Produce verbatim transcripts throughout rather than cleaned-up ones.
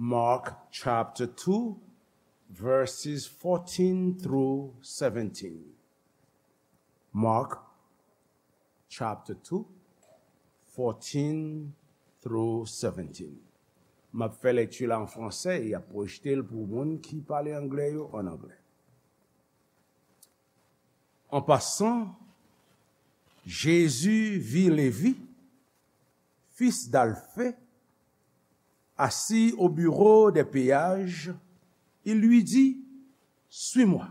Mark chapter two, verses fourteen through seventeen. Mark chapter two, fourteen through seventeen. M ap fè lekti la an fransè e y ap pwojte l pou moun ki pale anglè yo an anglè. En passant, Jésus vit Lévi, fils d'Alphée, assis au bureau des péages. Il lui dit : « Suis-moi. »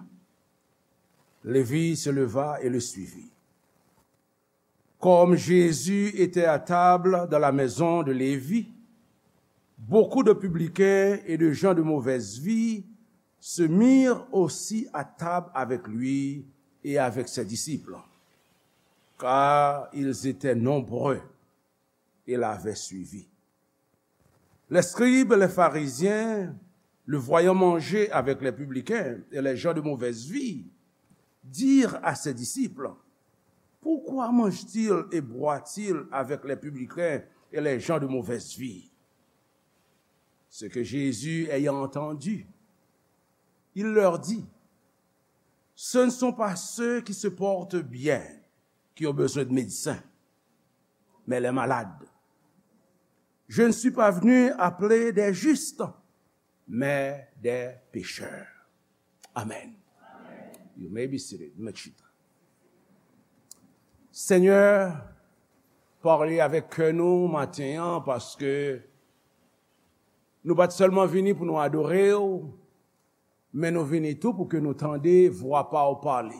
Lévi se leva et le suivit. Comme Jésus était à table dans la maison de Lévi, beaucoup de publicains et de gens de mauvaise vie se mirent aussi à table avec lui et avec ses disciples, car ils étaient nombreux et l'avaient suivi. Les scribes et les pharisiens, le voyant manger avec les publicains et les gens de mauvaise vie, dirent à ses disciples : « Pourquoi mange-t-il et boit-il avec les publicains et les gens de mauvaise vie ? » Ce que Jésus, ayant entendu, il leur dit : « Ce ne sont pas ceux qui se portent bien qui ont besoin de médecins, mais les malades. Je ne suis pas venu appeler des justes, mais des pécheurs. » Amen. You may be seated. Mèt chita. Senyè, pale avèk kè nou maten an, paske nou pa t sèlman vini pou nou adore w, men nou vini tou pou ke nou tande vwa pa w pale.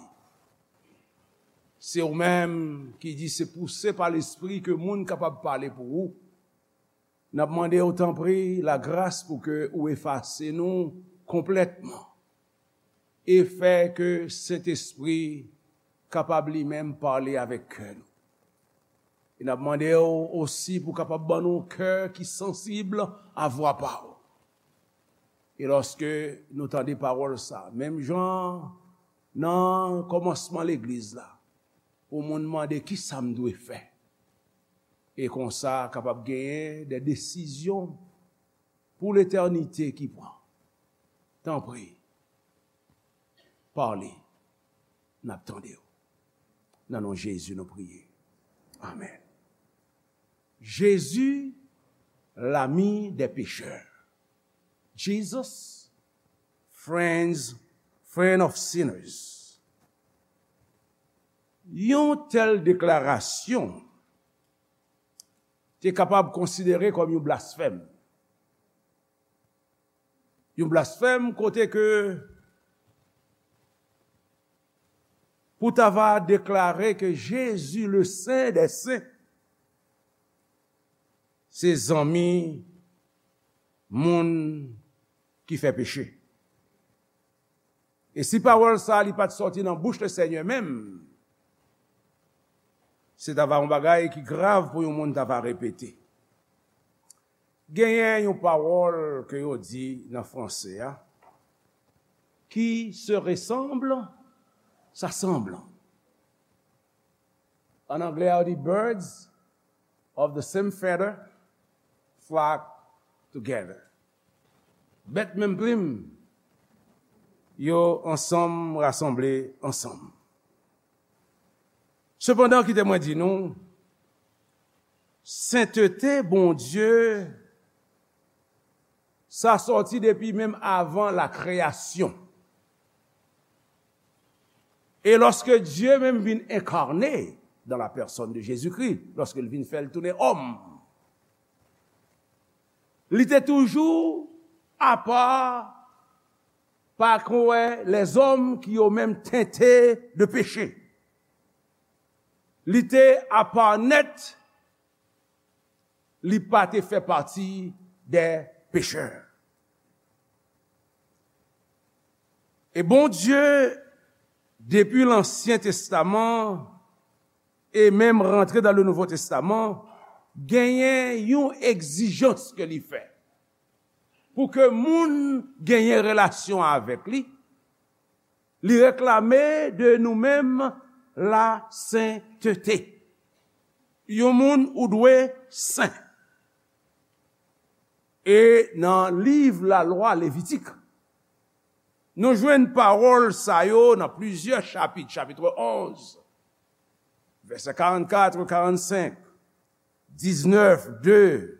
Se ou menm ki di se pouse pa Lespri ke moun kapab pale pou ou. N ap mande w, tanpri, lagras pou ke ou efase nou konplètman e fè ke Sentespri kapab li menm pale avèk kè nou. E n ap mande w osi pou kapab ban nou kè ki sansib a vwa pa w. E lòske nou tande pawòl sa, menm jan nan kòmansman legliz la, pou moun mande, "Kisa m dwe fè?" E konsa, kapab genyen de desizyon pou letènite ki pran. Tanpri, pale, n ap tande w. Nan non Jezi, nou priye. Amèn. Jezi, lami dè pechè. Jesus, friends, friend of sinners. Yon tèl deklarasyon te kapab konsidere kòm yon blasfèm. Yon blasfèm kote ke pou ta va deklare ke Jezi, le Sen dè Sen, se zanmi moun ki fè peche. E si pawòl sa a li pa t sòti nan bouch Lesenyè menm, se ta va yon bagay ki grav pou yon moun ta va repete. Genyen yon pawòl ke yo di nan franse a, "Qui se ressemble, s'assemble." An anglè, yo di, "Birds of the same feather flock together." Bèt menm plim, yo ansanm rasanble ansanm. Sepandan, kite mwen di nou, sentete Bondye, sa sòti depi menm avan la kreyasyon. E lòske Dye menm vin enkarne dans la personne de Jésus-Christ, lòske l vin fè l tounen òm, li te toujou apa, pa kwè lèzòm ki yo menm tente de peche. Li te apa nèt, li pa te fè pati dè pechè. E Bondye, depi Lansyen Testaman, e menm rantre dan le Nouvo Testaman, genyen yon egzijans ke li fè. Pou ke moun genyen relasyon avèk li, li reklame de nou menm lasentete. Yon moun ou dwe sen. E nan liv Lalwa Levitik, nou jwenn pawòl sa yo nan plizyè chapit, chapit onz, vèsè karannkat, karannsenk, diznèf, de,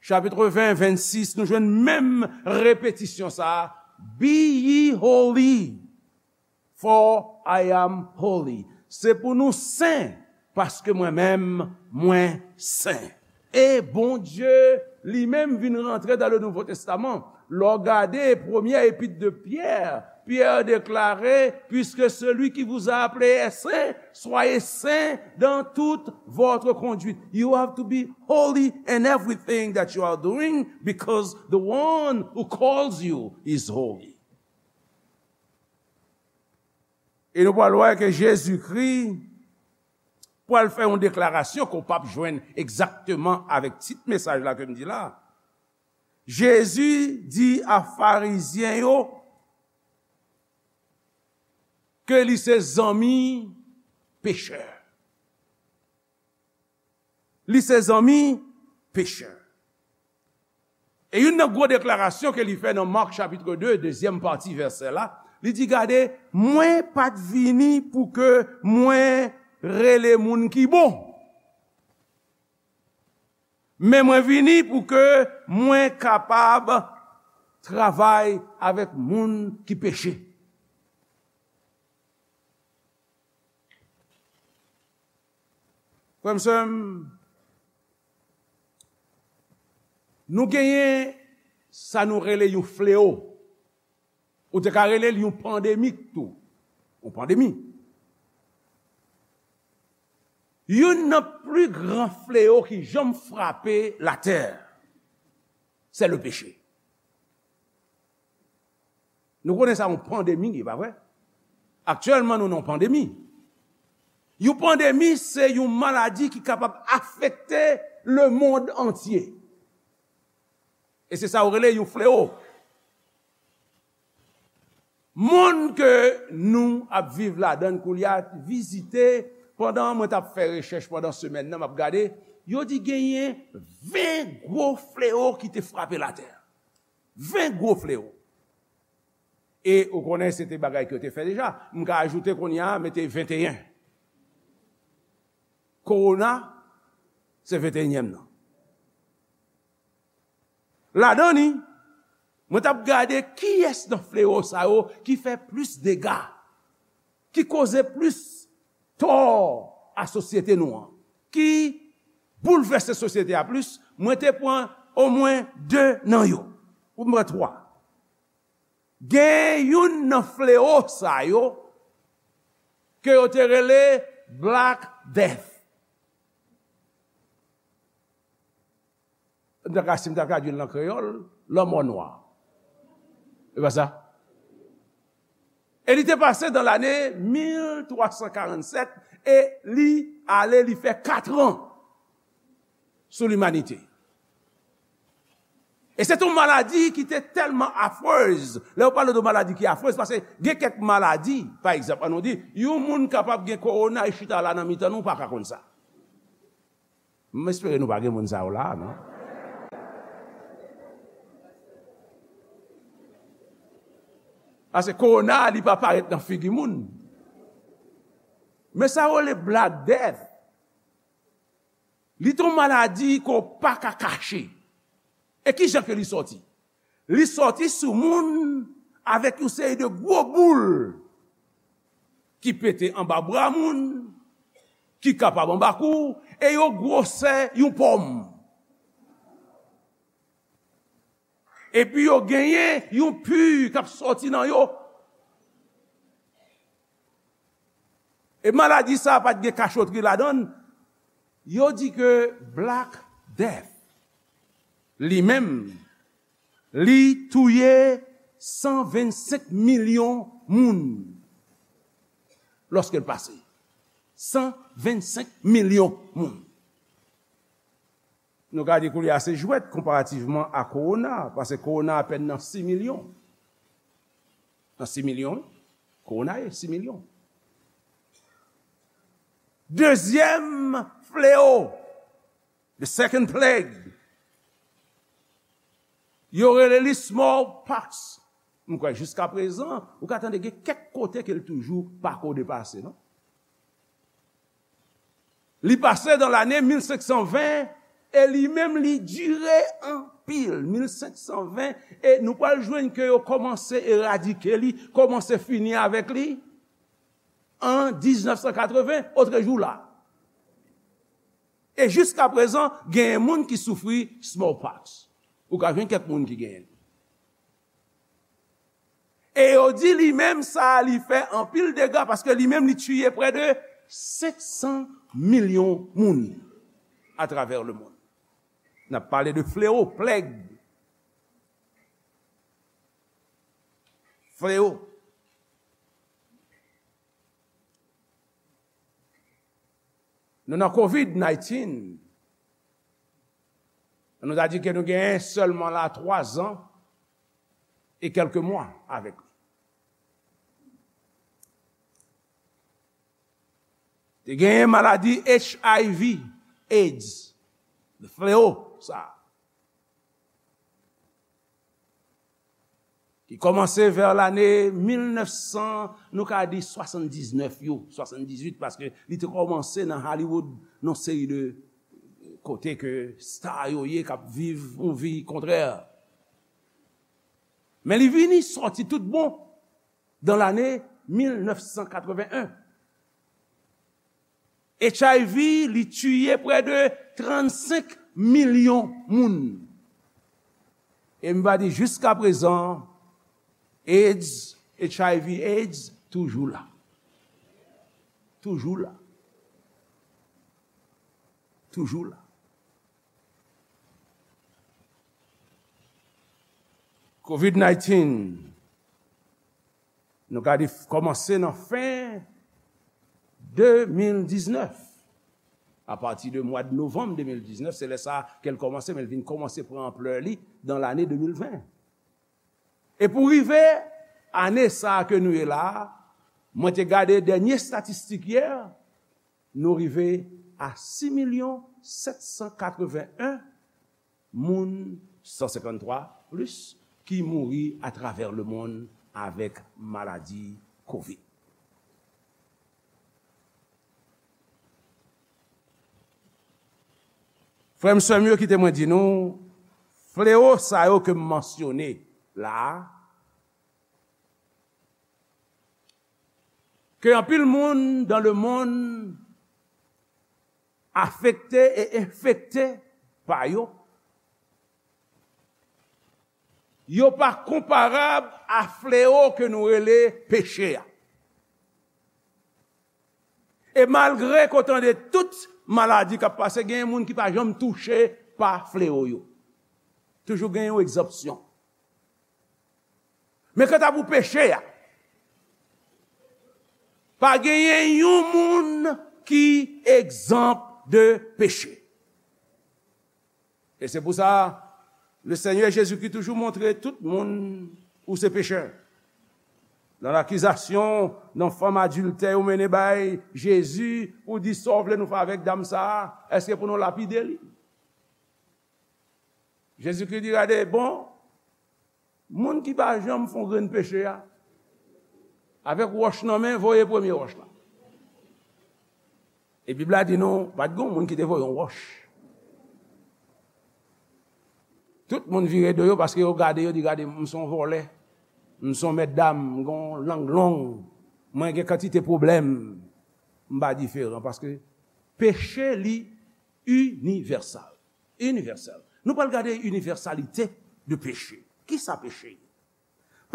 chapit ven, vennsis, nou jwenn menm repetisyon sa a, "Be ye holy, for I am holy." Se pou nou sen, paske mwen menm, mwen sen. E Bondye li menm vin rantre dans le Nouveau Testament. Lè w gade premyè epit de Pyè, Pyè deklare, "Puisque celui qui vous a appelé est saint, soyez saints dans toute votre conduite." You have to be holy in everything that you are doing, because the one who calls you is holy. E nou pral wè ke Jezikri pral fè yon deklarasyon ke w p ap jwenn egzakteman avèk tit mesaj la ke m di la. Jezi di a Farizyen yo ke li se zanmi pechè. Li se zanmi pechè. E youn nan gwo deklarasyon ke li fè nan Mak chapit de, dezyèm pati vèsè la, li di, "Gade, mwen pa t vini pou ke mwen rele moun ki bon, men mwen vini pou ke mwen kapab travay avèk moun ki peche." Frè m, sè m, nou genyen sa nou rele yon fleo. Ou te ka rele l yon pandemik tou. Yon pandemi. Youn nan pli gran fleo ki janm frape latè, se le peche. Nou konnen sa yon pandemi, e pa vre? Aktyèlman, nou nan yon pandemi. Yon pandemi, se yon maladi ki kapab afekte lemonn antye. E se sa yo rele yon fleo. Monn ke nou ap viv ladan l koulye a, vizite, pandan mwen t ap fè rechèch pandan semèn nan, m ap gade, yo di genyen ven gwo fleo ki te frape latè. Ven gwo fleo. E ou konnen se te bagay ke yo te fè deja. M ka ajoute kounye a, mete venteyen. Kowona, se venteyenyèm nan. Ladan li, mwen t ap gade kiyès nan fleo sa yo ki fè plis dega, ki koze plis tò a sosyete nou an, ki boulvèse sosyete a plis. Mwen te pran omwen de nan yo. Ou mwen twa. Gen youn nan fleo sa yo ke yo te rele Black Death. M ta ka, si m ta tradui l nan kreyòl, lanmò nwa. E pa sa? E li te pase dan lane mil twa san karannsèt e li ale, li fè katran sou limanite. E se te yon maladi ki te tèlman afrez. Lè yo pale de maladi ki afrez, paske gen kèk maladi, pa egzanp, ann nou di, yon moun kapab gen kowona, e chita la nan mitan nou, pa ka konn sa. M espere nou pa gen moun sa yo la, non? Paske kowona, li pa parèt nan figi moun. Men sa yo rele Black Death. Li te yon maladi ke w pa ka kache. E ki jan ke li sòti? Li sòti sou moun avèk yon seri de gwo boul ki pete anba bra moun, ki kapab anba kou, e yo gwosè yon pòm. Epi yo genyen yon pi k ap sòti nan yo. E maladi sa a pa t gen kachotri ladan l. Yo di ke Black Death, li menm, li touye san vennsenk milyon moun lòske l pase. San vennsenk milyon moun. Nou ka di koulye a se jwèt konparativman a kowona, paske kowona apèn nan sis milyon. Nan sis milyon, wi. Kowona ye sis milyon. Dezyèm fleo, the second plague, Yo rele li smallpox. M kwè jiska prezan, ou ka tande gen kèk kote ke l toujou pako depase, non? Li pase nan lane mil senk san ven, e li menm li dire anpil, mil senk san ven, e nou pral jwenn ke yo kòmanse eradike li, kòmanse fini avèk li an diznèf san katreven, otrejou la. E jiska prezan, genyen moun ki soufri smallpox. Ou ka jwenn kèk moun ki genyen l. E yo di li menm sa a, li fè anpil dega, paske li menm li tiye prè de senk san milyon moun atravè lemonn. N ap pale de fleo, plèg. Fleo. Nou nan covid nineteen. Nou ta di ke nou genyen sèlman la twa zan e kèlke mwa avèk li. Te genyen maladi H I V, AIDS, fleo sa a, ki kòmanse vè lane mil nèf san, nou ka di swasanndiznèf yo, swasanndizuit, paske li te kòmanse nan Hollywood, nan seri de kote ke sta yo ye, k ap viv yon vi kontrè. Men li vini sòti tout bon dan lane mil nèf san katreven en. H I V, li tiye prè de trannsenk milyon moun. E m va di jiska prezan, AIDS, H I V AIDS, toujou la. Toujou la. Toujou la. Covid nineteen, nou ka di kòmanse nan fen de mil diznèf. Apati de mwa de novanm de mil diznèf, se lè sa ke l kòmanse, men l vin kòmanse pran anplè li nan lane de mil ven. E pou rive ane sa a ke nou ye la a, mwen te gade dènye estatistik yè, nou rive a sis milyon sèt san katreven en moun, san senkanntwa plis, ki mouri atravè lemonn avèk maladi covid. Frè m, sè m yo, kite mwen di nou, fleo sa yo ke m mansyone la a, ke anpil moun dan lemonn afekte e enfekte pa yo, yo pa konparab a fleo ke nou rele peche a. E malgre ke w tande tout maladi k ap pase, genyen moun ki pa janm touche pa fleo yo. Toujou gen yon egzanpsyon. Men kanta pou peche a, pa genyen yon moun ki egzanp de peche. E se pou sa, le Senyè Jezikri toujou montre tout moun ou se pechè. Nan lakizasyon, nan fanm adiltè yo mennen bay Jezi pou di sa w vle nou fè avèk dam sa a, èske pou nou lapide li? Jezikri di, gade, bon, moun ki pa janm fè yon grenn peche a, avèk wòch nan men, voye premye wòch la. E Bib la di nou, pa t gen yon moun ki te voye yon wòch. Tout moun vire do yo paske yo gade, yo di, gade, m se yon vòlè, m se yon mètdam, m gen yon lang long, mwen gen kantite pwoblèm, m pa diferan paske peche li inivèsal. Inivèsèl. Nou pral gade inivèsalite de peche. Kisa peche ye?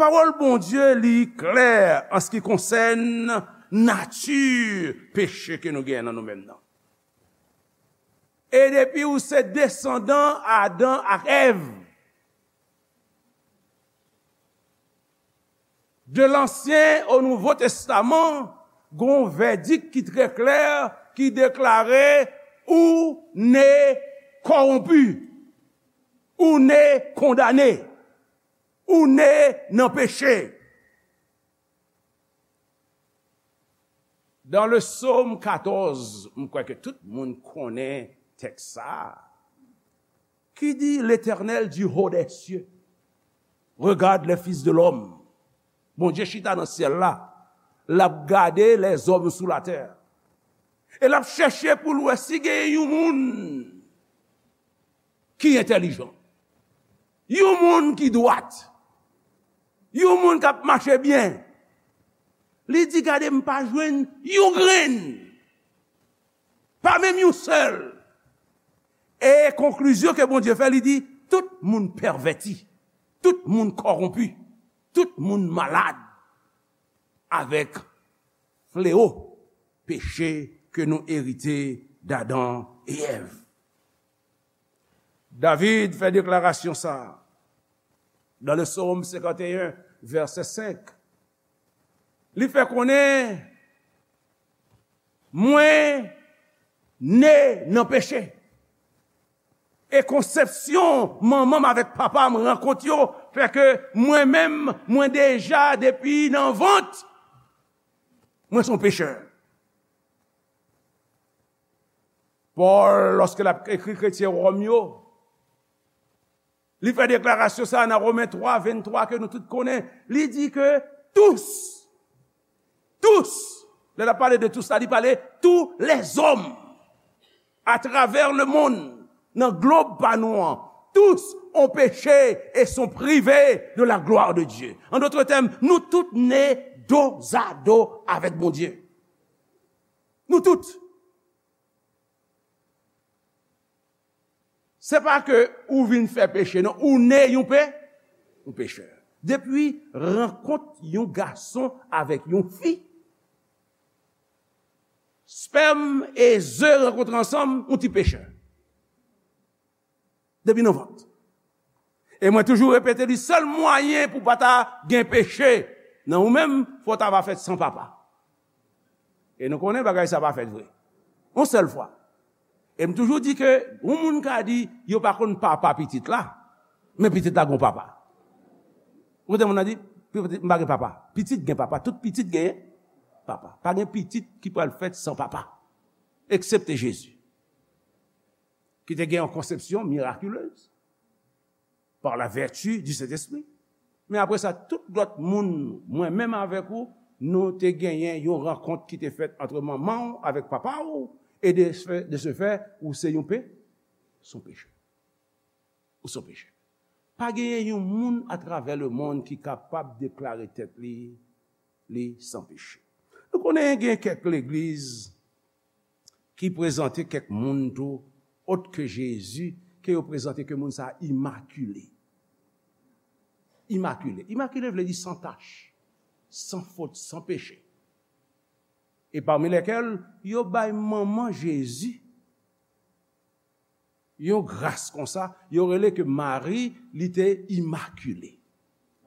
Pawòl Bondye li klè an se ki konsène nati peche ke nou genyen nan nou menm nan. E depi ou se desandan Adan ak Èv, de Lansyen o Nouvo Testaman, gon vèdik ki trè klè, ki deklare ou ne kòwonpi, ou ne kondane, ou ne nan peche. Dans le psaume quatorze, m kwè ke tout moun konnen tèks sa a, ki di, L'Éternel du haut des cieux Regarde les fils de l'homme. Bondye chita nan syèl la. L ap gade lèzòm sou latè. E l ap chèche pou l wè si gen yon moun ki entèlijan. Yon moun ki dwat. Yon moun k ap mache byen. Li di, "Gade, m pa jwenn yon grenn. Pa menm yon sèl." E konklizyon ke Bondye fè, li di, "Tout moun pèvèti. Tout moun kòwonpi. Tout moun malad." Avèk fleo peche ke nou erite d Adan e Èv. David fè deklarasyon sa a dans le Psaume cinquante et un, verset cinq. Li fè konnen, "Mwen ne nan peche. E konsepsyon manman m avèk papa m rankont yo fè ke mwen menm, mwen deja depi nan vant, mwen se yon pechè." Pòl, lòske l ap ekri kretyen Wòm yo, li fè deklarasyon sa a nan Women twa venntwa ke nou tout konnen. Li di ke tous, tous, lè l ap pale de tous la, li pale tous les hommes à travers le monde, nan glob pa nou an, tous ont péché et sont privés de la gloire de Dieu. En d'autres termes, nou tout ne dozado avèk Bondye. Nou tout. Se pa ke ou vin fè peche, non. Ou ne yon pe, yon pechè. Depi rankont yon gason avèk yon fi, spèm e ze rankontre ansanm, yon ti pechè. Depi nan vant. E mwen toujou repete li, sèl mwayen pou pa ta gen peche nan ou menm, fò w ta va fèt san papa. E nou konnen bagay sa pa fèt vre. Yon sèl fwa. E m toujou di ke yon moun ka di yo pa konn papa pitit la, men pitit la gon papa. Ou konnen moun nan di, "Pitit, m pa gen papa." Pitit gen papa, tout pitit gen papa. Pa gen pitit ki pral fèt san papa, eksepte Jezi, ki te gen yon konsepsyon miraculez par la vertu du Saint-Esprit. Men apre sa, tout lòt moun, mwen menm avèk ou, nou te genyen yon rankont ki te fèt antre manman w avèk papa w, e de ce fait, de ce fait, ou se yon pe, se yon pechè. Ou se yon pechè. Pa genyen yon moun atravè lemonn ki kapab deklare tèt li, li san peche. Nou konnen gen kèk legliz ki prezante kèk moun tou, ot ke Jezi, ke yo prezante ke moun sa a imakile. Imakile. Imakile vle di san tach, san fot, san peche. E pami lèkèl, yo bay manman Jezi yon gras konsa, yo rele ke Mari, li te imakile.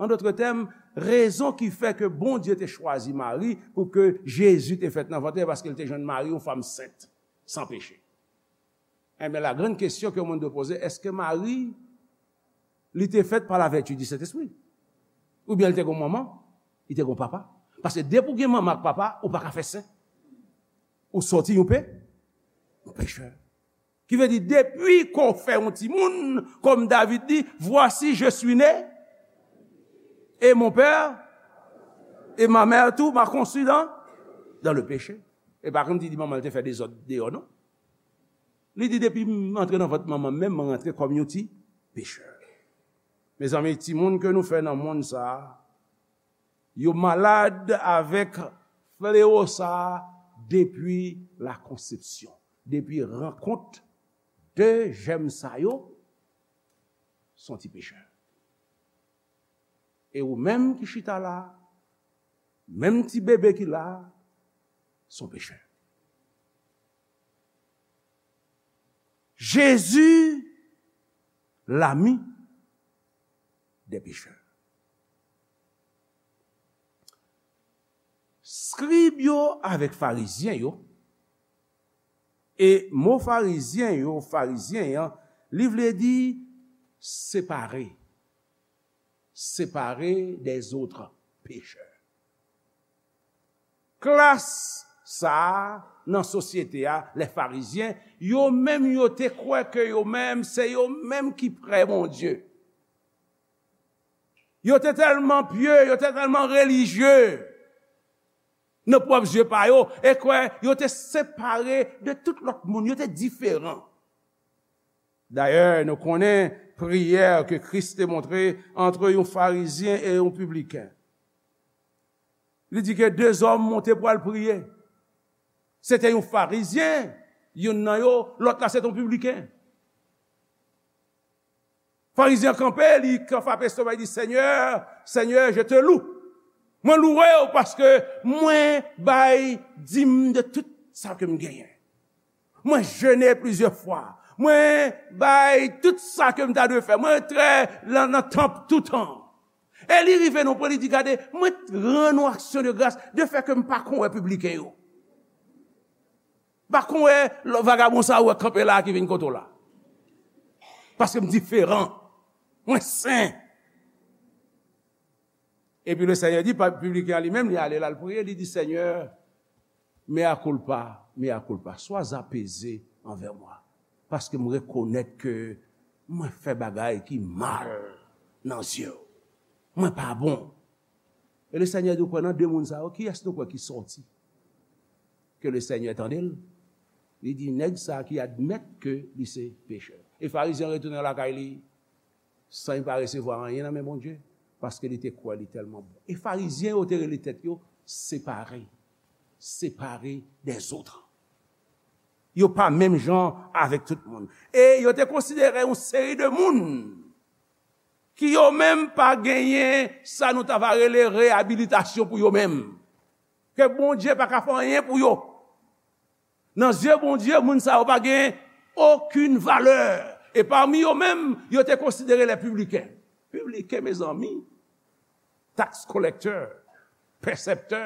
An dòt tèm, rezon ki fè ke Bondye te chwazi Mari pou ke Jezi te fèt nan vant li, paske l te jwenn Mari, yon fanm sent, san peche. Enben, la grande question que le monde doit poser, èske Mari, li te fèt pa la vertu du Saint-Esprit? Oubyen li te gon manman, li te gon papa? Paske depi w gen manman ak papa, ou pa ka fè sen. Ou sòti yon pe, yon pechè. Ki vle di, depi ke w fè yon timoun, kòm David di, "Voici, je suis né, et mon père, et ma mère tout m'a conçu dans, dans le péché." E pa kòmsi di manman l te fè dezòd deyò, non. Li di, "Depi m antre nan vant manman m, menm mwen rantre kòm yon ti pechè." Mezanmi, timoun ke nou fè nan monn sa a, yo malad avèk flewo sa a depi la konsepsyon, depi rankont de jèm sa yo, se yon ti pechè. E ou menm ki chita la, menm ti bebe ki la, se yon pechè. Jezi, lami dè pechè. Skrib yo avèk farizyen yo, e mo farizyen yo, farizyen an, li vle di separe, séparés des autres pécheurs. Klas sa a nan sosyete a, lè farizyen, yo menm yo te kwè ke yo menm, se yo menm ki prè Bondye. Yo te tèlman pye, yo te tèlman relijye nan pwòp zye pa yo, e kwè yo te separe de tout lòt moun, yo te diferan. Dayè, nou konnen priyè ke Kris te montre ant yon Farizyen e yon pibliken. Li di ke de zòm monte pou al priye. Se te yon Farizyen, youn nan yo, lòt la se te yon pibliken. Farizyen an kanpe, li frape estoma, li di, Seigneur, Seigneur, je te loue. Mwen louwe w paske mwen bay dim de tout sa ke m genyen. Mwen jene plizyè fwa. Mwen bay tout sa ke m ta dwe fè. Mwen trè nan, nan tanp toutan. E li rive nan pwen, li di, gade, mwen rann ou aksyon de gras de fè ke m pa konn wè pibliken yo. Pa konn wè vagabon sa ou wè kanpe la ki vin kote w la. Paske m diferan. Mwen sen. Epi le Seigneur di, pa, pibliken an li menm, li ale la, l priye, li di, Seigneur, mea culpa, mea culpa, sois apaisé envers moi. Paske m rekonèt ke mwen fè bagay ki mal nan zye w. Mwen pa bon. E le Seigneur di, ou kwè nan de moun sa yo, kiyès nou kwè ki sòti? Ke le Seigneur tande l. Li di, nèg sa ki admèt ke li se pechè. E Farizyen an retounen lakay li, san li pa resevwa anyen nan men Bondye, paske li te kwè li tèlman bon. E Farizyen yo te rele tèt yo separe, separe des autres. Yo pa menm jan avèk tout moun. E yo te konsidere yon seri de moun ki yo menm pa genyen sa nou ta va rele reyabilitasyon pou yo menm. Ke Bondye pa ka fè anyen pou yo. Nan zye Bondye, moun sa yo pa gen okenn valè. E pami yo menm, yo te konsidere les publicains. Pibliken, mezanmi, tax collector, pèsèptè,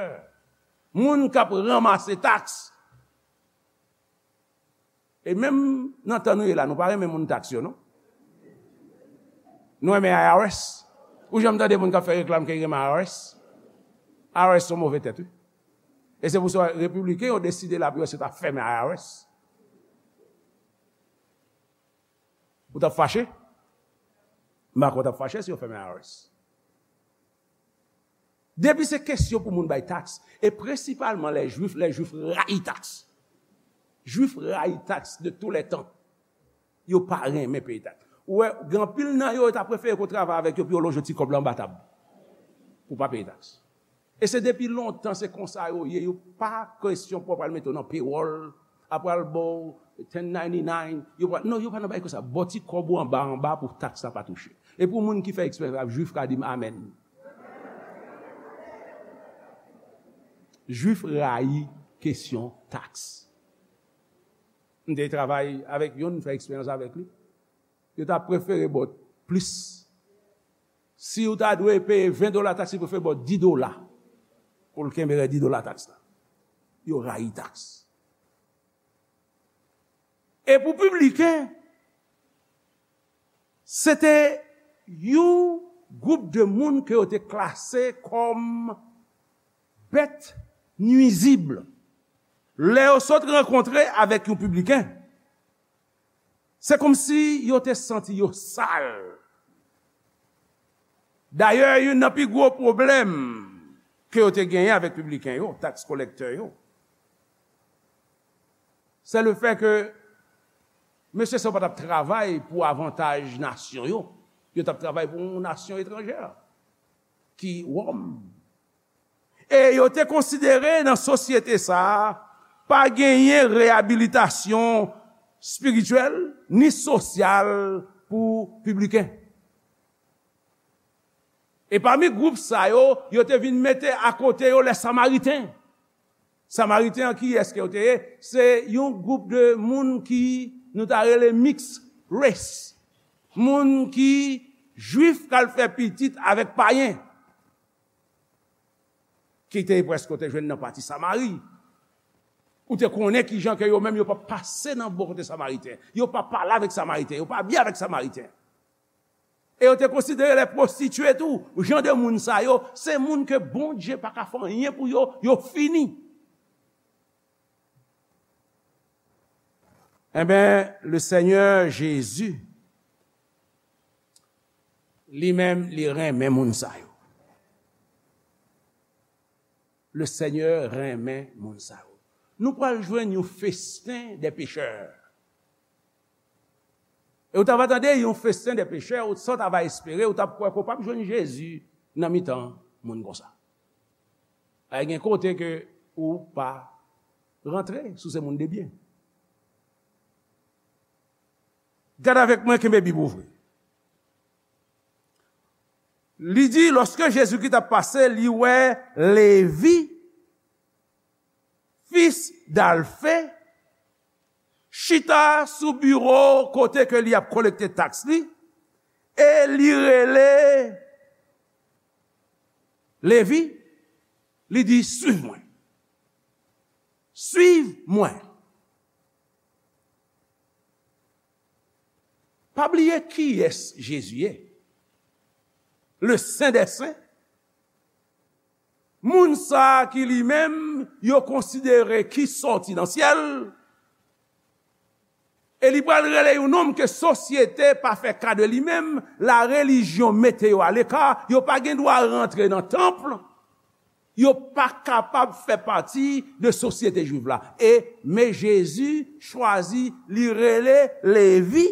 moun k ap ranmase taks. E menm nan tan nou ye la, nou pa renmen moun taks yo, non? Nou renmen I R S. Ou janm tande moun k ap fè reklam ke li renmen I R S? I R S se yon move tèt, wi. E se pou sa, repibliken yo deside la pou yo se ta fèmen I R S. Ou t ap fache? M pa kwè w t ap fache si yo fèmen I R S. Depi se kesyon pou moun bay taks, e prensipalman lè Jwif, lè Jwif rayi taks. Jwif rayi taks de tous les temps. Yo pa renmen peye taks. Ou wè, gen anpil nan yo, yo ta prefere ke w travay avèk yo pou yo lonje yon ti kòb la anba tab. Pou w pa peye taks. E se depi lontan, se konsa yo ye. Yo pa kesyon pou w pral mete w nan pewòl, apre al ba w ten ninety-nine, yo pral, non, yo pa nan bagay konsa. Ba w ti kòb ou anba, anba pou taks la pa touche. E pou moun ki fè eksperyans la, Jwif ka di m amèn. Jwif rayi kesyon taks. M te travay avèk youn, m fè eksperyans avèk li. Yo ta prefere ba w plis. Si w ta dwe peye ven dola taks, yo prefere ba w dis dola pou l kenbe rès dis dola taks la. Yo rayi taks. E pou pibliken, se te yon gwoup de moun ke yo te klase kòm bèt nwizib. Lè yo sot rankontre avèk yon pibliken, se kòmsi yo te santi yo sal. Dayè, youn nan pi gwo pwoblèm ke yo te genyen avèk pibliken yo, taks kolektè yo, se le fè ke mesye sa yo pa t ap travay pou avantaj nasyon yo. Yo t ap travay pou yon nasyon etranjè, ki Wòm. E yo te konsidere nan sosyete sa a, pa genyen reyabilitasyon espirityèl ni sosyal pou pibliken. E pami gwoup sa yo, yo te vin mete akote yo lè Samariten. Samariten an, kiyès ke yo te ye? Se yon gwoup de moun ki nou ta rele mix race. Moun ki Jwif k al fè pitit avèk payen. Ki te prèske, ou te jwenn nan pati Samari. Ou te konnen kijan ke yo menm yo pa pase nan bò kote Samariten. Yo pa pale avèk Samariten. Yo pa byen avèk Samariten. E yo te konsidere lè pwostitye tou. Jan de moun sa yo, se moun ke Bondye pa ka fè anyen pou yo, yo fini. Enben, le Seigneur Jésus Li menm, li renmen moun sa yo. Le Seigneur renmen moun sa yo. Nou pral jwenn yon festen de pechè. E ou ta va tande yon festen de pechè, ou sa w ta va espere, ou t ap kwè ke w p ap jwenn Jezi nan mitan moun konsa. Ay, gen kote ke ou pa rantre si w se moun de byen. Gade avèk mwen, kenbe Bib ouvri. Li di, lòske Jezikri t ap pase, li wè Levi, fis d'Alfe, chita sou biwo kote ke li ap kolekte taks li, e li rele Levi, li di, "Suiv mwen. Suiv mwen." Pa bliye kiyès Jezi ye. Le Sen dè Sen. Moun sa a ki li menm, yo konsidere ki sòti nan syèl. E li pral rele yon nonm ke sosyete pa fè ka de li menm, la relijyon mete yo aleka, yo pa gen dwa rantre nan tanp. Yo pa kapab fè pati de sosyete jwiv la. E, men Jezi chwazi, li rele Levi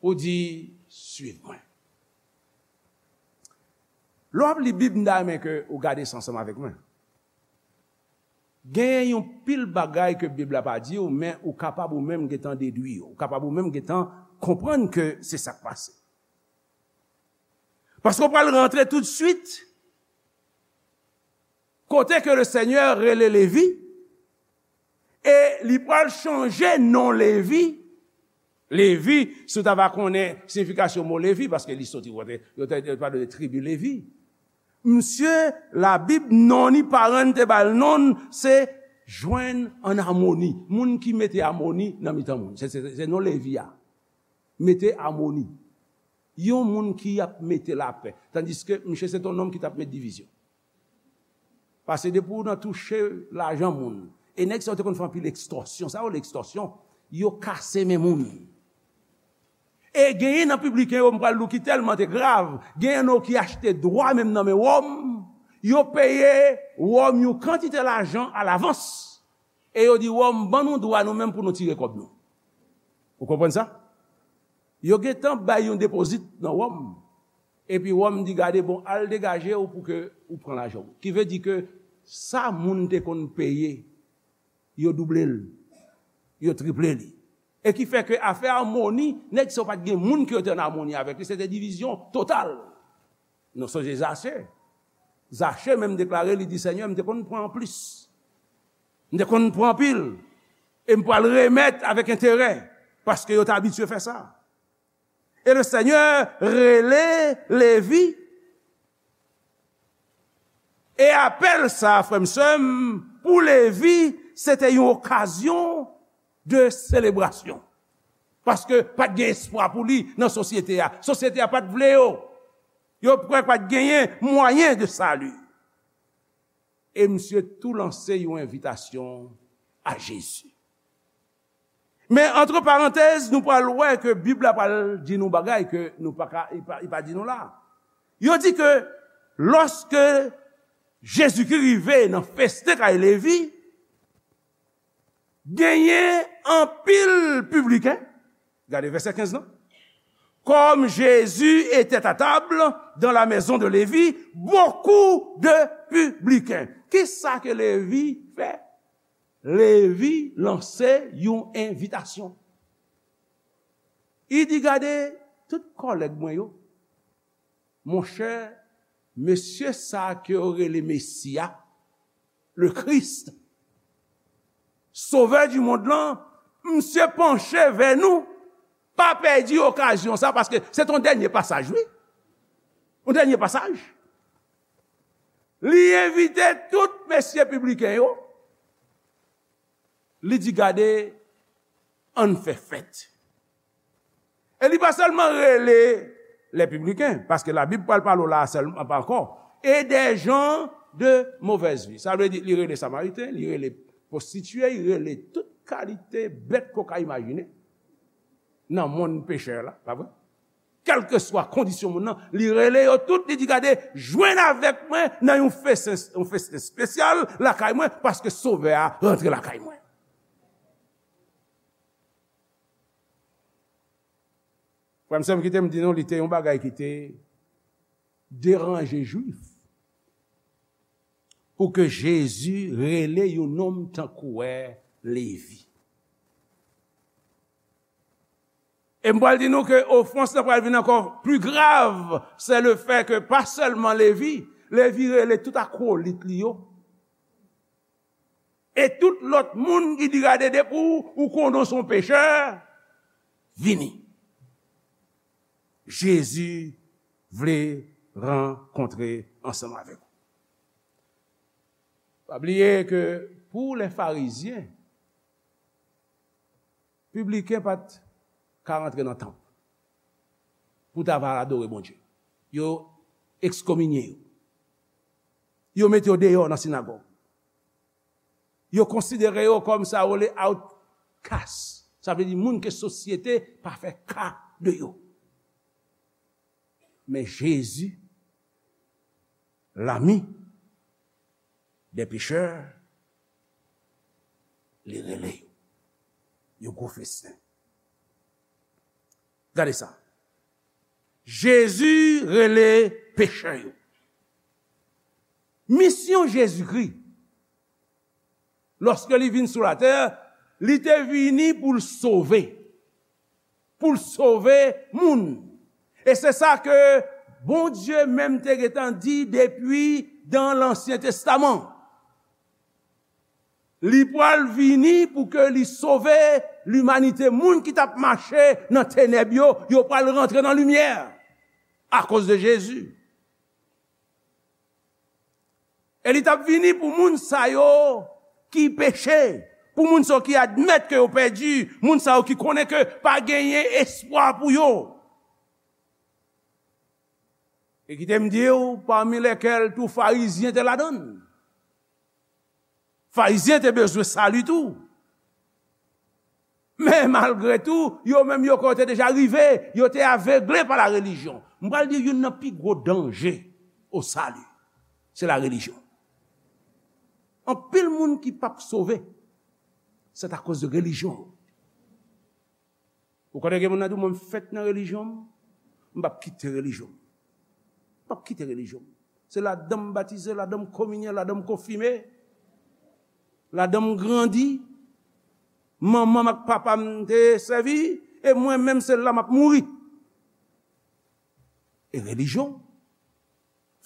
pou di, "Suiv mwen." Lè w ap li Bib, m ta renmen ke ou gade sa ansanm avèk mwen. Genyen yon pil bagay ke Bib la pa di w, men ou kapab ou menm gentan dedwi yo. Ou kapab ou menm gentan konprann ke se sa k pase. Paske w pral rantre toutswit kote ke le Senyè rele Levi, e li pral chanje non Levi. Levi, si w ta va konnen siyifikasyon mo Levi, paske li soti kote, yo te, yo te pale de tribi Levi. Misye, Labib, non li, paran te ba l non, se jwenn an amoni. Moun ki mete amoni nan mitan moun. Se, se, se non Levi a. Mete amoni. Yon moun ki ap mete lapè. Tandiske misye se t yon nonm ki t ap met divizyon. Paske depi w nan touche lajan moun, e nèg sa yo te konn fè anpil ekstòsyon. Sa yo rele ekstòsyon? Yo kase men moun. E genyen nan pibliken yo, m pral di w ki tèlman te grav, genyen nan yo ki achte dwa menm nan men Wòm, yo peye Wòm yon kantite lajan alavans. E yo di Wòm, "Ban nou dwa nou menm pou nou tire kòb nou." Ou konprann sa? Yo gentan bay yon depozit nan Wòm. Epi Wòm di, "Gade, bon, al degaje w pou ke ou pran lajan w." Ki vle di ke sa moun te konn peye, yo double l, yo triple li. E ki fè ke afè amoni, nèg sa yo pa t gen moun ke yo te an amoni avèk li, se te divizyon total. Nou sonje Zache. Zache menm deklare, li di, "Senyè, m te konn pran plis. M te konn pran anpil. E m pral remèt avèk enterè, paske yo te abitye fè sa." E le Senyè rele Levi. E apèl sa, frè m, sè m, pou Levi, se te yon okazyon de selebrasyon. Paske pa t gen espwa pou li nan sosyete a. Sosyete a pa t vle yo. Yo kwè pa t genyen mwayen de sali. E misye tou lanse yon envitasyon a Jezi. Men, antre parantèz, nou pral wè ke Bib la pral di nou bagay ke nou pa ka, li pa, li pa di nou la. Yo di ke lòske Jezikri rive nan festen kay Levi, genyen anpil pibliken. Gade vèsè kenz lan. Comme Jésus était à table dans la maison de Lévi, beaucoup de publicains. Kisa ke Levi fè? Levi lanse yon envitasyon. Li di, "Gade, tout kòlèg mwen yo, monchè, mesye sa a ke yo rele Mesi a, le Christ, Sauveur du monde lan, misye panche vè nou, pa pèdi okazyon sa, paske se t yon dènye pasaj, wi. Yon dènye pasaj." Li envite tout mesye pibliken yo. Li di, "Gade, ann fè fèt." E li pa sèlman rele les publicains, paske Labib pral pale w la sèlman, pa ankò, et des gens de mauvaise vie. Sa vle di, li rele Samariten, li rele pwostitye, li rele tout kalite bèt ke w ka imajine. nan monn pechè la, pa vre? Kèlkeswa kondisyon moun nan, li rele yo tout, li di, "Gade, jwenn avèk mwen nan yon festen, yon festen espesyal lakay mwen, paske Sovè a rantre lakay mwen." Frè m, sè m, kite m di nou, li te yon bagay ki te deranje Jwif pou ke Jezi rele yon nonm tankou wè Levi. E m pral di nou ke ofans lan pral vin ankò pli grav, se le fè ke pa sèlman Levi, Levi rele tout akwolit li yo. E tout lòt moun ki di, "Gade, depi w, ou konnen w se yon pechè, vini." Jezi vle rankontre ansanm avèk ou. Pa bliye ke pou lè Farizyen, pibliken pa t ka rantre nan tanp pou ta va adore Bondye. Yo ekskominye yo. Yo mete yo deyò nan sinagòg. Yo konsidere yo kòm sa yo rele outcast. Sa vle di moun ke sosyete pa fè ka de yo. Men Jezi, lami dè pechè, li rele yo. Yon gwo festen. Gade sa. Jezi rele pechè yo. Misyon Jezikri, lòske li vin sou latè, li te vini pou l sove. Pou l sove moun. E se sa ke Bondye menm te gentan di depi dan Lansyen Testaman. Li pral vini pou ke li sove limanite. Moun ki t ap mache nan tenèb yo, yo pral rantre nan limyè akoz de Jezi. E li t ap vini pou moun sa yo ki peche, pou moun sa yo ki admèt ke yo pèdi, moun sa yo ki konnen ke pa genyen espwa pou yo. E kite m di w, pami lèkèl tou Farizyen te ladan l. Farizyen te bezwen sali tou. Men malgre tou, yo menm yo kwè yo te deja rive, yo te avegle pa la relijyon. M pral di youn nan pi gwo danje o sali, se la relijyon. Anpil moun ki p ap sove, se akoz de relijyon. Ou konnen gen moun nan di w, "Mwen, m fèt nan relijyon m, m p ap kite relijyon m. M p ap kite relijyon m. Se ladan m batize, ladan m kominye, ladan m konfime, ladan m grandi. Manman m ak papa m te sèvi, e mwen menm se la m ap mouri." E relijyon.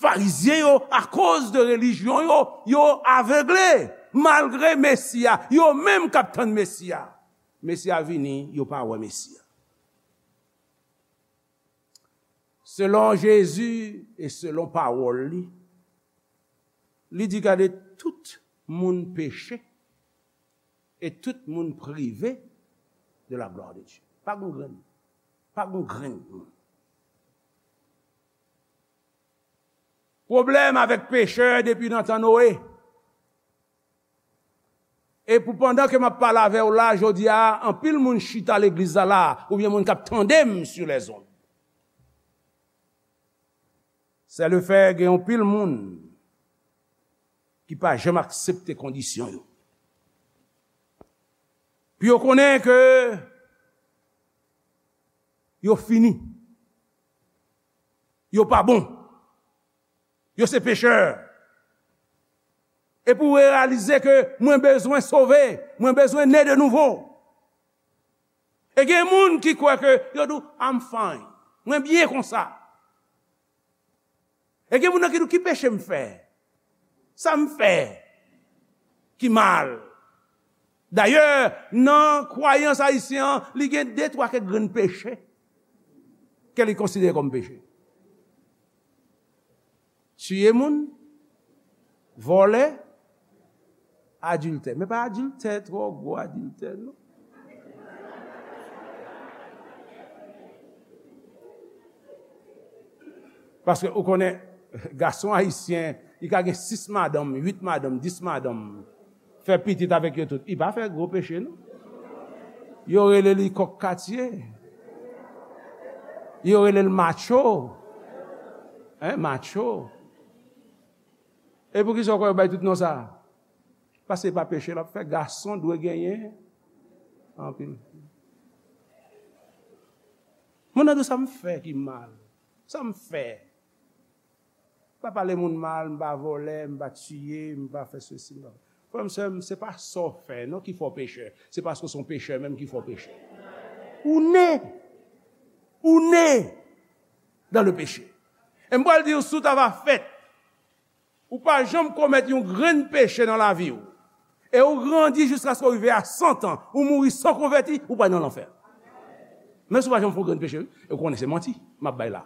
Farizyen yo, akoz de relijyon yo, yo avegle, malgre Mesi a, yo menm k ap tann Mesi a. Mesi a vini, yo pa wè Mesi a. Selon Jezi e selon pawòl li, li di, "Gade, tout moun peche e tout moun prive de la gloire de Dieu." Pa gon grenn, pa gon grenn moun. Pwoblèm avèk pechè depi nan tan Noe. E pou pandan ke m ap pale avè w la, jodi a, anpil moun chita legliz la la, oubyen moun k ap tande m sur les ondes. Se le fè gen anpil moun ki pa janm aksepte kondisyon yo. Pou yo konnen ke yo fini. Yo pa bon. Yo se pechè. E pou w reyalize ke mwen bezwen sove, mwen bezwen ne de nouvo. E gen moun ki kwè ke yo di w, "I'm fine. Mwen byen konsa." E gen moun nan ki di w, "Ki peche m fè? Sa m fè ki mal?" Dayè, nan kwayans ayisyen an, li gen de twa kèk grenn peche ke li konsidere kòm peche. Tiye moun, vòlè, adiltè. Men pa adiltè, twò gwo adiltè, non. Paske ou konnen, gason ayisyen, li ka gen sis madanm, uit madanm, dis madanm, fè pitit avèk yo tout. Li pa fè gwo peche, non. Yo rele li kòk katye. Yo rele l macho. Hein, macho. E poukisa w kwè yo bay tout non sa a? Paske se pa peche l ap fè. Gason dwe genyen anpil. Moun nan di w sa m fè ki mal. Sa m fè. M pa pale moun mal, m pa vòlè, m pa tiye, m pa fè sesi, m pa... Frè m, sè m, se pa sa w fè non ki fè w pechè. Se paske w se yon pechè menm ki fè w pechè. Ou ne. Ou ne dans le péché. E m pral di w, si w ta va fèt, ou pa janm komèt yon grenn peche nan lavi w, e ou grandi jiskaske w rive a san tan, ou mouri san konvèti, ou pral nan lanfè. Men si w pa janm fè yon grenn peche, wi, e w konnen se manti m ap bay la.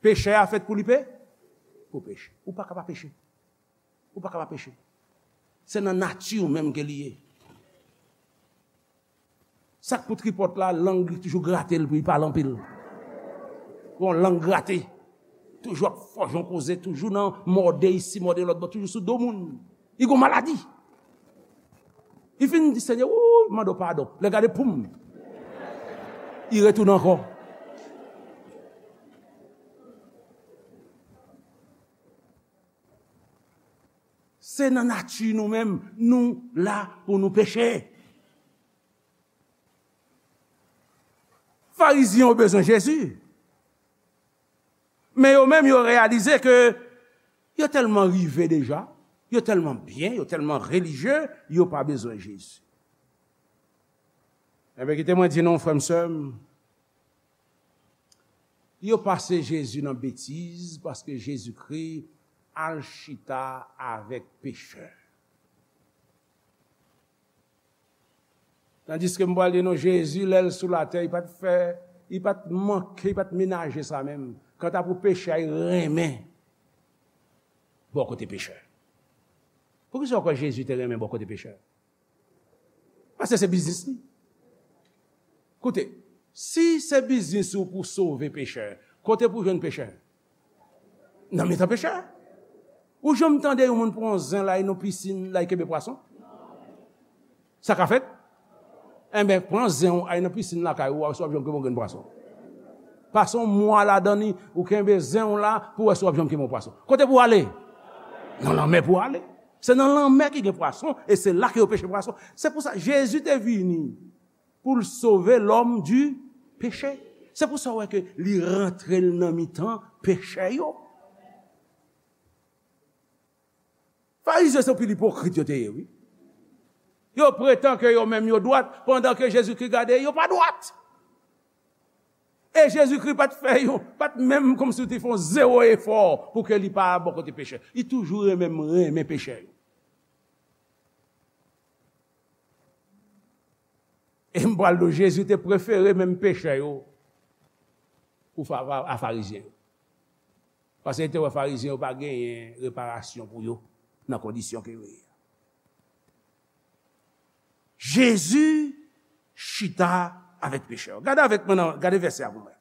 Pechè a fèt pou li pe-, pou peche. Ou pa ka pa peche. Ou pa ka pa peche. Se nan nati w menm ke li ye. Sa k pou tripòt la, lang li toujou grate l pou li pale anpil. Gon lang grate. Toujou ap fòje yon koze, toujou nan mòde isi, mòde lòt bò, toujou sou do moun. Li gon maladi. Li fin di, Senyè, wouy, mande w padon. Lè gade, poum. Li retounen ankò. Se nan nati nou menm, nou la pou nou peche. Farizyen yo bezwen Jezi. Men yo menm, yo reyalize ke yo tèlman rive deja, yo tèlman byen, yo tèlman relijye, yo pa bezwen Jezi. Enben, kite mwen di nou, frè m, sè m, yo pase Jezi nan betiz, paske Jezikri al chita avèk pechè. Tandiske m pral di nou, Jezi, lè l sou latè, li pa t fè, li pa t manke, li pa t menaje sa menm. Kanta pou pechè a, li renmen bò kote pechè. Poukisa w kwè Jezi te renmen bò kote pechè? Paske se biznis li. Koute, si se biznis ou pou sove pechè, kote pou jwenn pechè? Nan mitan pechè. Ou janm tande yon moun pran zen l al nan pisin, l al kenbe pwason? Sa ka fèt? Enben, pran zen w, al nan pisin lakay ou, w a wè si w ap jwenn yon grenn pwason. Pase yon mwa ladan li, ou kenbe zen w la pou w wè si w ap janm kenbe yon pwason. Kote pou w ale? Nan lanmè pou w ale. Se nan lanmè ki gen pwason, e se la ke yo peche pwason. Se pou sa, Jezi te vini pou l sove lòm di peche. Se pou sa w wè ke li rantre l nan mitan pechè yo. Farizyen se pil ipokrit yo te ye, wi. Yo pretan ke yo menm yo dwat, pandan ke Jezikri gade, yo pa dwat. E Jezikri pa t fè yon, pa t menm kòmsi li te fè yon zewo efò pou ke li pa bò kote pechè. Li toujou renmen, renmen pechè yo. E m pral di w, Jezi te prefere menm pechè yo pou fa-, a Farizyen yo. Paske li te wè Farizyen yo pa genyen reparasyon pou yo nan kondisyon ke yo ye a. Jezi chita avèk pechè yo. Gade avèk mwen nan, gade vèsè a pou mwen.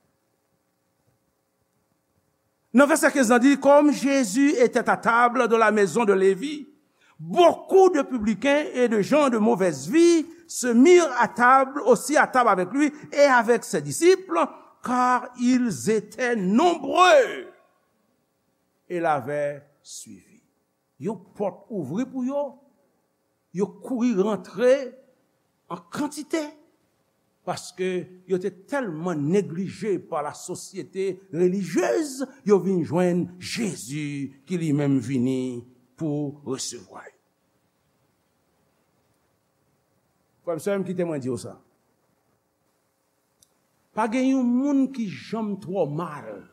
Nan vèsè kenz lan di, comme Jésus était à table dans la maison de Lévi, beaucoup de publicains et de gens de mauvaise vie se mirent à table, aussi à table avec lui et avec ses disciples, car ils étaient nombreux et l'avaient suivi. Yon pòt ouvri pou yo, yo kouri rantre an kantite, paske yo te tèlman neglije pa la sosyete relijyez, yo vin jwenn Jezi ki li menm vini pou resevwa yo. Frè m, sè m, kite mwen di w sa. Pa gen yon moun ki janm twò mal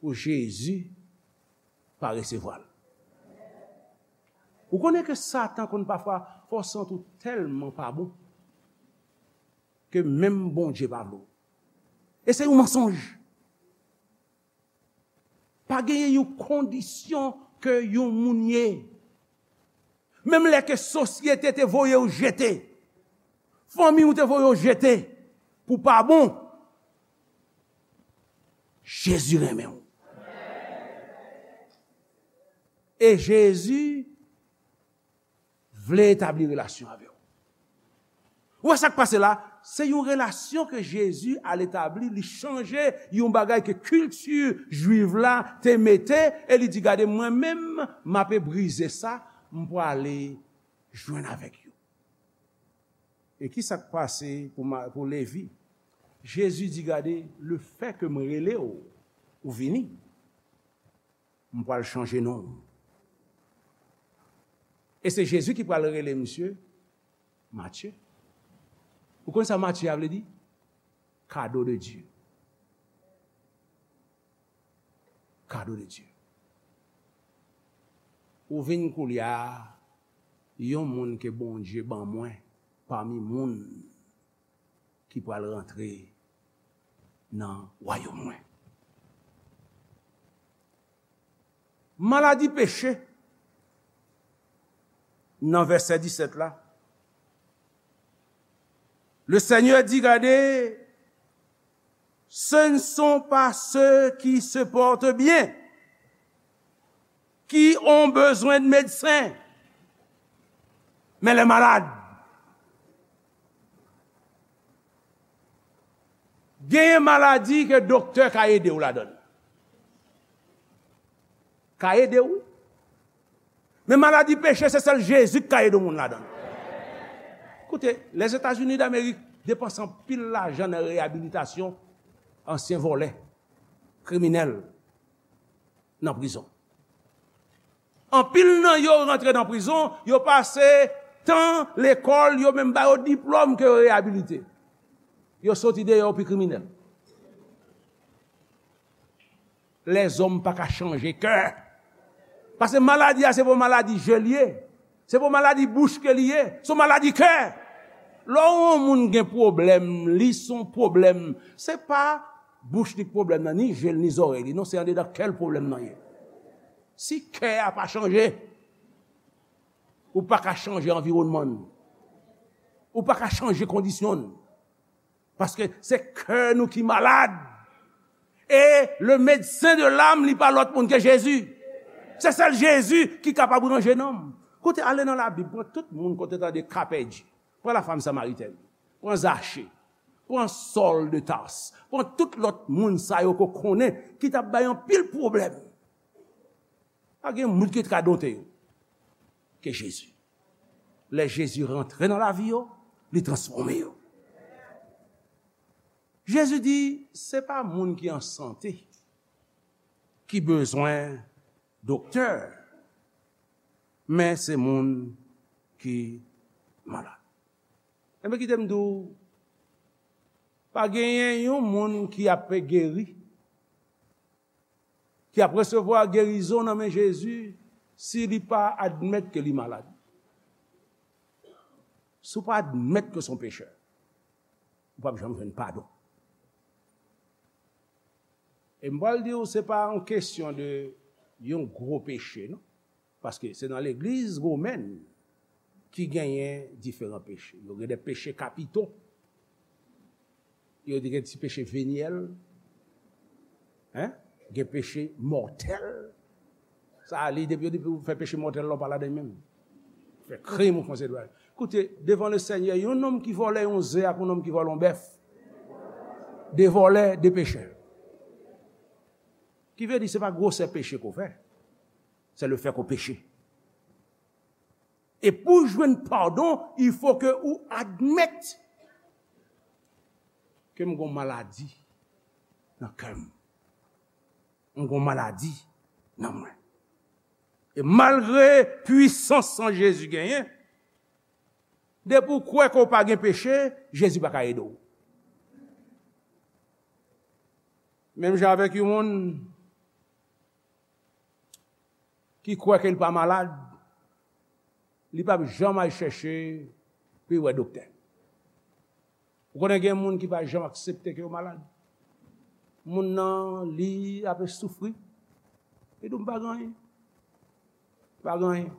pou Jezi pa resevwa l. Ou konnen ke Satan konn pafwa fè w santi w tèlman pa bon ke menm Bondye pa vle w. E se yon mansonj. Pa genyen yon kondisyon ke yon moun ye. Menm lè ke sosyete te voye w jete, fanmi w te voye w jete pou pa bon, Jezi renmen w. E Jezi vle etabli relasyon avè w. Ou wè sa k pase la? Se yon relasyon ke Jezi al etabli, li chanje yon bagay ke kilti jwiv la te mete, e li di, "Gade, mwen menm, m ape brize sa, m prale jwenn avèk yo." E ki sa k pase pou, ma- pou Levi? Jezi di, "Gade, lefètke m rele w, ou vini, m pral chanje non w." E se Jezi ki pral rele misye Matye. Ou konn sa Matye a vle di? Kado de Dye. Kado de Dye. Ou vin koulye a yon moun ke Bondye ban mwen pami moun ki pral rantre nan wayòm mwen. Maladi peche, nan vèsè disèt la, le Seigneur dit, gade, ce ne sont pas ceux qui se portent bien qui ont besoin de médecin, mais les malades. Genyen maladi ke doktè ka ede w ladan l. Ka ede w, wi. Men maladi peche, se sèl Jezi ki ka ede yon moun ladan l. Koute, Lèzetazini Damerik depanse anpil lajan nan reyabilitasyon ansyen vòlè, kriminèl, nan prizon. Anpil nan yo rantre nan prizon, yo pase tan lekòl, yo menm ba yo diplòm ke yo reyabilite. Yo soti deyò, yo pi kriminèl. Lèzòm pa ka chanje kè. Paske maladi a, se pa maladi je li ye. Se pa maladi bouch ke li ye. Se maladi kè. Lè yon moun gen pwoblèm, li se yon pwoblèm. Se pa bouch li k pwoblèm nan, ni je l, ni zòrèy li. Non, se andedan kè l pwoblèm nan ye. Si kè a pa chanje, ou pa ka chanje anviwònman l. Ou pa ka chanje kondisyon l. Paske se kè nou ki malad. E le medsen de lam, li pa lòt moun ke Jezi. Se sèl Jezi ki kapab ranje nanm. Koute, ale nan Labib, pran tout moun kote tande ka pèdi. Pran la femme samaritaine, pran Zache, pran Sòl de Tas, pran tout lòt moun sa yo ke w konnen ki t ap bay anpil pwoblèm. Pa gen moun ki t ka dote yo ke Jezi. Lè Jezi rantre nan lavi yo, li transfòme yo. Jezi di, se pa moun ki an sante ki bezwen doktè, men se moun ki malad. Enben, kite m di w, pa genyen yon moun ki ap geri, ki ap resevwa gerizon nan men Jezi, si li pa admèt ke li malad. Si w pa admèt ke w se yon pechè, ou p ap janm jwenn padon. E m pral di w, se pa yon kesyon de yon gwo peche, non. Paske se nan legliz womèn ki genyen diferan peche. Yo gen de peche kapito. Yo di gen ti peche venyèl. Hein? Gen peche mòtèl. Sa a, li, depi, depi w fè peche mòtèl la, w pa ladan menm. Fè krim ou fè yon seri de bagay. Koute, devan le Senyè, yon nonm ki vòlè yon ze ak yon nonm ki vòlè yon bèf. De vòlè, de pechè. Ki vle di, se pa gwosè peche ke w fè. Se le fè ke w peche. E pou w jwenn padon, il faut que ou admèt ke m gon maladi nan kè m. M gon maladi nan mwen. E malgre pwisans san Jezi genyen, depi w kwè ke w pa gen peche, Jezi pa ka ede w. Menm jan avèk yon moun ki kwè ke l pa malad, li p ap janm al chèche pou l wè doktè. Ou konnen gen moun ki pa janm aksepte ke yo malad. Moun nan, li ape soufri. Li di w, "M pa gen anyen. Pa gen anyen."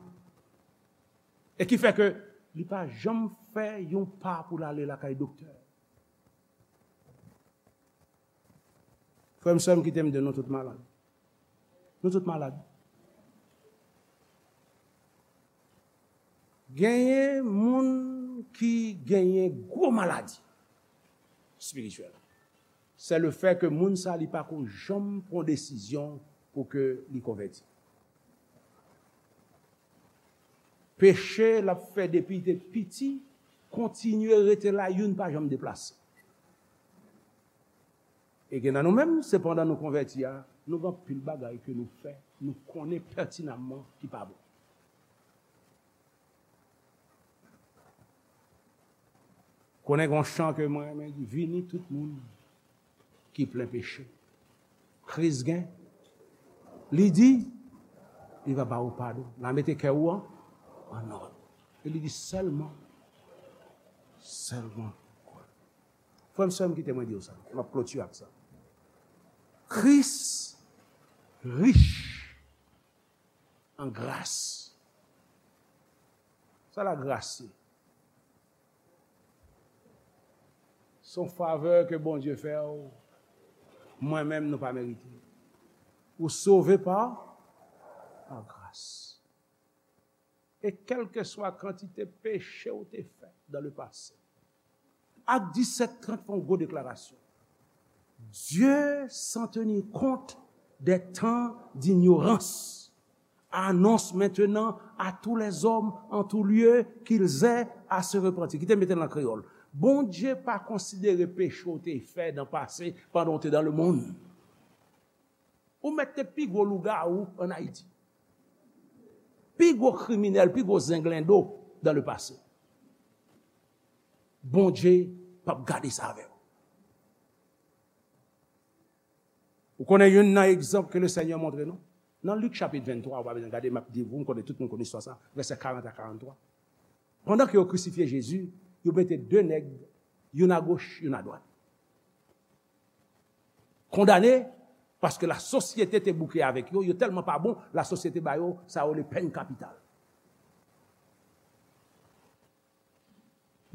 E ki fè ke li pa janm fè yon pa pou l ale lakay doktè. Frè m, sè m, kite m di w, nou tout malad. Nou tout malad. Genyen moun ki genyen gwo maladi. espirityèl. Se le fè ke moun sa li pa ko janm pran desizyon pou ke li konvèti. Peche l ap fè depi li te piti, kontinye rete la, youn pa janm deplase. E gen nan nou menm, se pandan nou konvèti a, nou gen anpil bagay ke nou fè, nou konnen pètinamman ki pa bon. Konnen gen yon chan ke mwen renmen di, vini tout moun ki plen peche. Kris gen, li di, li va ba ou padon. L a mete kè ou an, an nòd. E li di sèlman, sèlman kwè. Frè m, sè m, kite mwen di w sa. M ap klotire ak sa. Kris rich an gras. Sa lagras ye? Se yon favè ke Bondye fè w. Mwen menm, nou pa merite. Ou sove pa, pa gras. E kèlkeswa kantite peche w te fè dans le passé, Ak disèt trant fè yon gwo deklarasyon. Dieu, sans tenir compte des temps d'ignorance, annonce maintenant à tous les hommes en tout lieu qu'ils aient à se repentir. Kite m mete l an kreyòl. Bondye pa konsidere peche w te fè nan pase pandan w te dans le monde. Ou mèt te pi gwo lougawou ann Ayiti. Pi gwo kriminèl, pi gwo zenglendo dans le passé. Bondye p ap gade sa avè w. Ou konnen youn nan egzanp ke Lesenyè montre nou? Nan Lik chapit venntwa, ou pa bezwen gade, m ap di w, m konnen tout moun konn istwa sa, vèsè karant a karanntwa. Pandan ke yo krisifye Jezi, yo mete de nèg, youn agoch, youn adwat. Kondane, paske lasosyete te bouke avèk yo, yo tèlman pa bon, lasosyete ba yo, sa yo rele pèn kapital.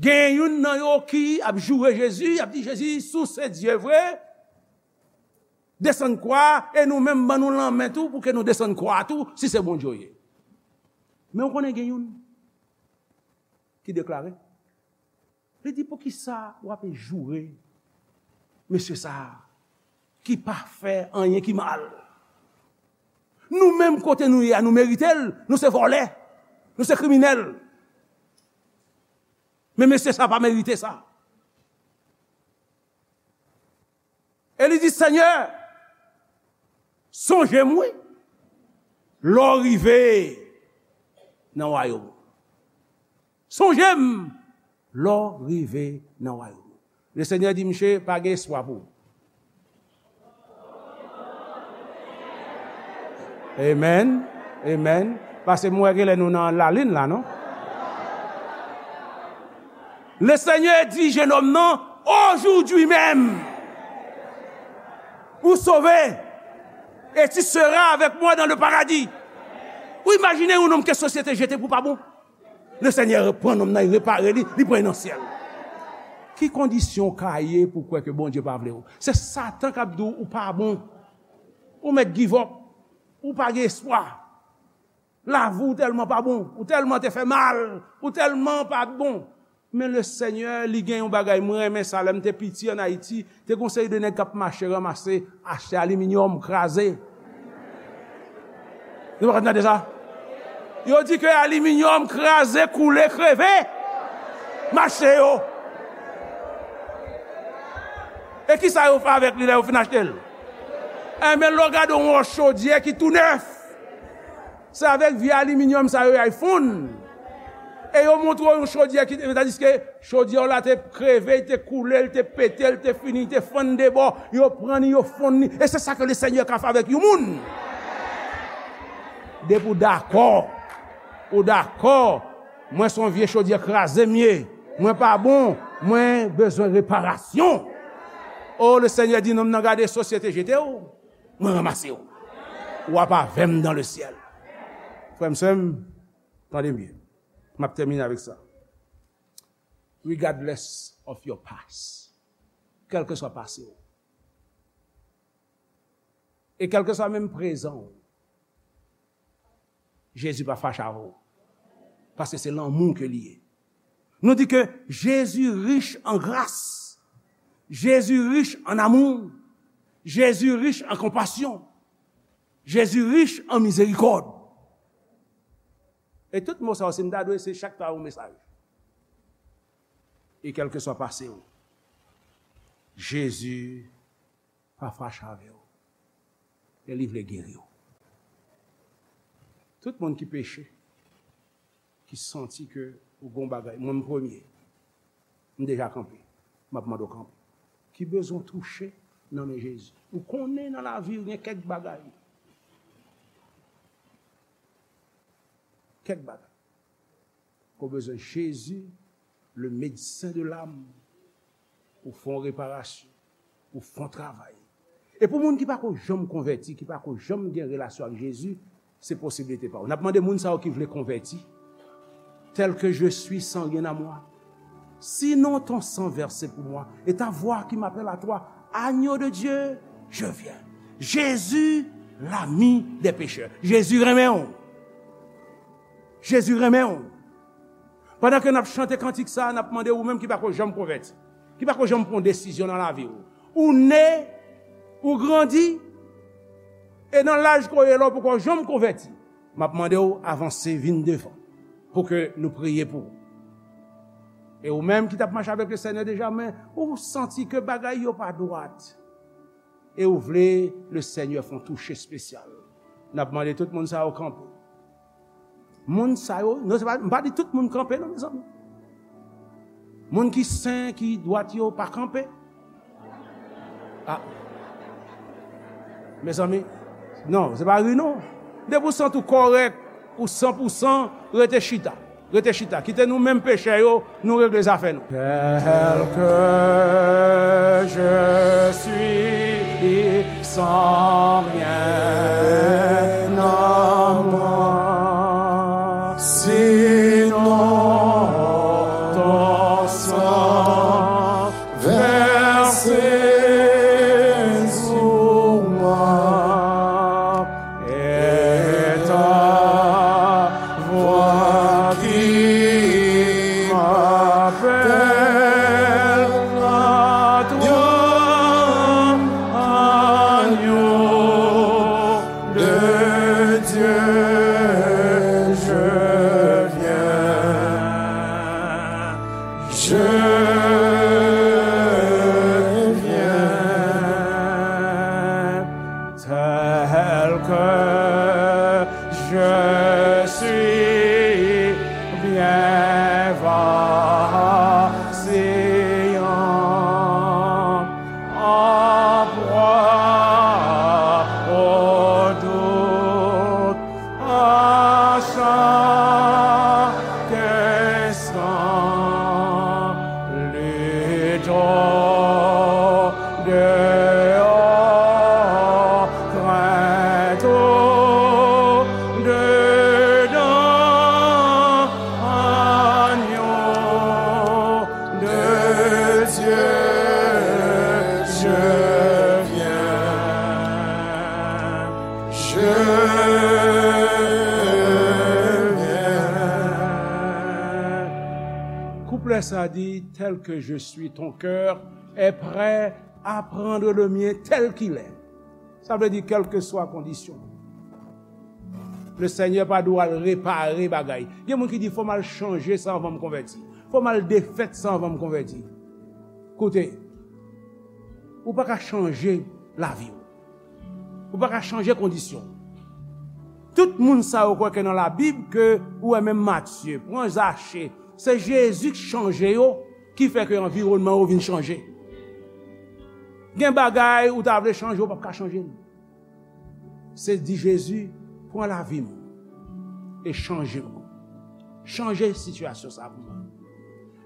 Gen youn nan yo ki ap joure Jezi, ap di, Jezi, si w se Dye vre, desann kwa, e nou menm ban nou lanmen tou, pou ke nou desann kwa tou, si se Bondye w ye. Men w konnen gen youn ki deklare, li di, poukisa w ape joure mesye sa a ki pa fè anyen ki mal? Nou menm kote nou ye a, nou merite l, nou se vòlè, nou se kriminèl. Men mesye sa pa merite sa. E li di, Senyè, sonje m, wi, lè w rive nan wayòm ou. Sonje m lè w rive nan wayòm ou. Lesenyè di, miche, pa gen espwa pou ou. Amen. Amen. Paske m wè genlè nou nan lalin la, non? Lesenyè di jenòm nan, aujourd'hui même, ou sauvé, et tu seras avec moi dans le paradis. Ou imajine yon nonm ke sosyete jete pou pa bon. Lesenyè pran nonm nan, li repare li, li pran li nan syèl. Ki kondisyon w ka ye pou w kwè ke Bondye pa vle w? Se Satan k ap di w ou pa bon. Ou mèt give up. Ou pa gen espwa. Lavi w tèlman pa bon. Ou tèlman te fè mal. Ou tèlman pa bon. Men Lesenyè, li gen yon bagay, mwen renmen sa, lè m te piti ann Ayiti, te gen yon seri de nèg k ap mache ranmase, achte aliminyòm, kraze. Nou pa konn tande sa? Yo di ke aliminyòm kraze, koule, kreve, mache yo. E kisa yo fè avèk li lè yo fin achte l? Enben, lè w gade yon chodyè ki tou nèf, se avèk vye aliminyòm sa yo y al fonn. E yo montre w yon chodyè ki, tandiske chodyè w la te kreve, li te koule, li te pete, li te fini, li te fann de bò. Yo pran li, yo fonn li. E se sa ke Lesenyè ka fè avèk yon moun. Depi w dakò, ou dakò, mwen se yon vye chodyè kraze m ye. Mwen pa bon, mwen bezwen reparasyon. O, Lesenyè di, nonm nan, gade, sosyete jete w. Mwen ranmase w. W ap avè m dans le ciel. Frè m, sè m, tande m byen. M ap tèmine avèk sa. Regardless of your past. Kèlkeswa pase w. E kèlkeswa menm prezan w. Jezi pa fache avè w. Paske se lanmou ke li ye. Nou di ke Jezi rich an gras. Jezi rich an amou. Jezi rich an konpasyon. Jezi rich an mizerikòd. E tout mo sa yo, si m ta dwe, se chak ta yon mesaj. E kèlkeswa pase w, Jezi pa fache avè w. E li vle geri w. Tout moun ki peche, ki santi ke ou gon bagay, mwen m premye, m deja kanpe, m ap mande w kanpe, ki bezwen touche nan men Jezi. Ou konnen nan lavi w gen kèk bagay, kèk bagay ke w bezwen Jezi, le médecin de l'âme, pou fè yon reparasyon, pou fè yon travay. E pou moun ki pako janm konvèti, ki pako janm gen relasyon ak Jezi, se posiblite pa w. N ap mande moun sa yo ki vle konvèti, tel que je suis, sans rien à moi. Sinon ton sang versé pour moi et ta voix qui m'appelle à toi, agneau de Dieu, je viens. Jezi, l'ami des pécheurs. Jezi renmen w. Jezi renmen w. Pandan ke n ap chante kantik sa, n ap mande ou menm ki pako janm konvèti, ki pako janm pran desizyon nan lavi w. Ou ne, ou grandi, e nan laj ke w ye la, ou poko janm konvèti. M ap mande w avanse, vin devan, pou ke nou priye pou ou. E ou menm ki t ap mache avèk le Senyè deja, men ou santi ke bagay yo pa dwat, e ou vle le Senyè fè yon touche espesyal. N ap mande tout moun sa yo kanpe. Moun sa yo, non, se pa, m pa di tout moun kanpe, non, mezanmi. Moun ki sen, ki dwat yo, pa kanpe. Ah. Mezanmi, non, se pa ri, non. Depi w santi w kòrèk, ou san pou san, rete chita. Rete chita. Kite nou menm pechè yo, nou regle zafè nou. Tel que je suis, sans rien à moi, sinon ton sang versé sur moi, et ta voix qui m'appelle à toi, agneau de Dieu, je viens, je viens, tel que je suis, bien vacillant, en proie au doute, à chaque instant, lutte au dehors, crainte au dedans, agneau de Dieu, je viens, je viens. Kouplè sa di, tel que je suis, ton cœur est prêt à prendre le mien tel qu'il est. Sa vle di, kèlkeswa kondisyon, le Senyè pa dwe al repare bagay. Gen moun ki di, fò m al chanje sa anvan m konvèti. Fò m al defèt sa anvan m konvèti. Koute, ou pa ka chanje lavi w. Ou pa ka chanje kondisyon. Tout moun sa yo kwè ke nan Labib, ke ou wè menm Matye, pran Zache, se Jezi k chanje yo, ki fè ke anviwònman yo vin chanje. Gen bagay ou ta vle chanje, ou p ap ka chanje l. Se di Jezi, pran lavi m e chanje m. Chanje sitiyasyon sa pou mwen.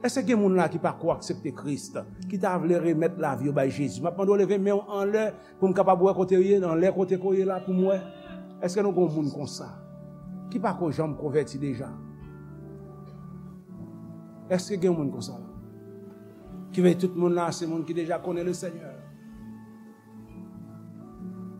Èske gen moun la ki pako aksepte Kris, ki ta vle remèt lavi yo bay Jezi? M ap mande w leve men w anlè pou m kapab wè kote w ye, anlè kote ke w ye la pou m wè. Èske nou gen yon moun konsa ki pako janm konvèti deja? Èske gen yon moun konsa la? Ki vle di tout moun la se moun ki deja konnen le Senyè.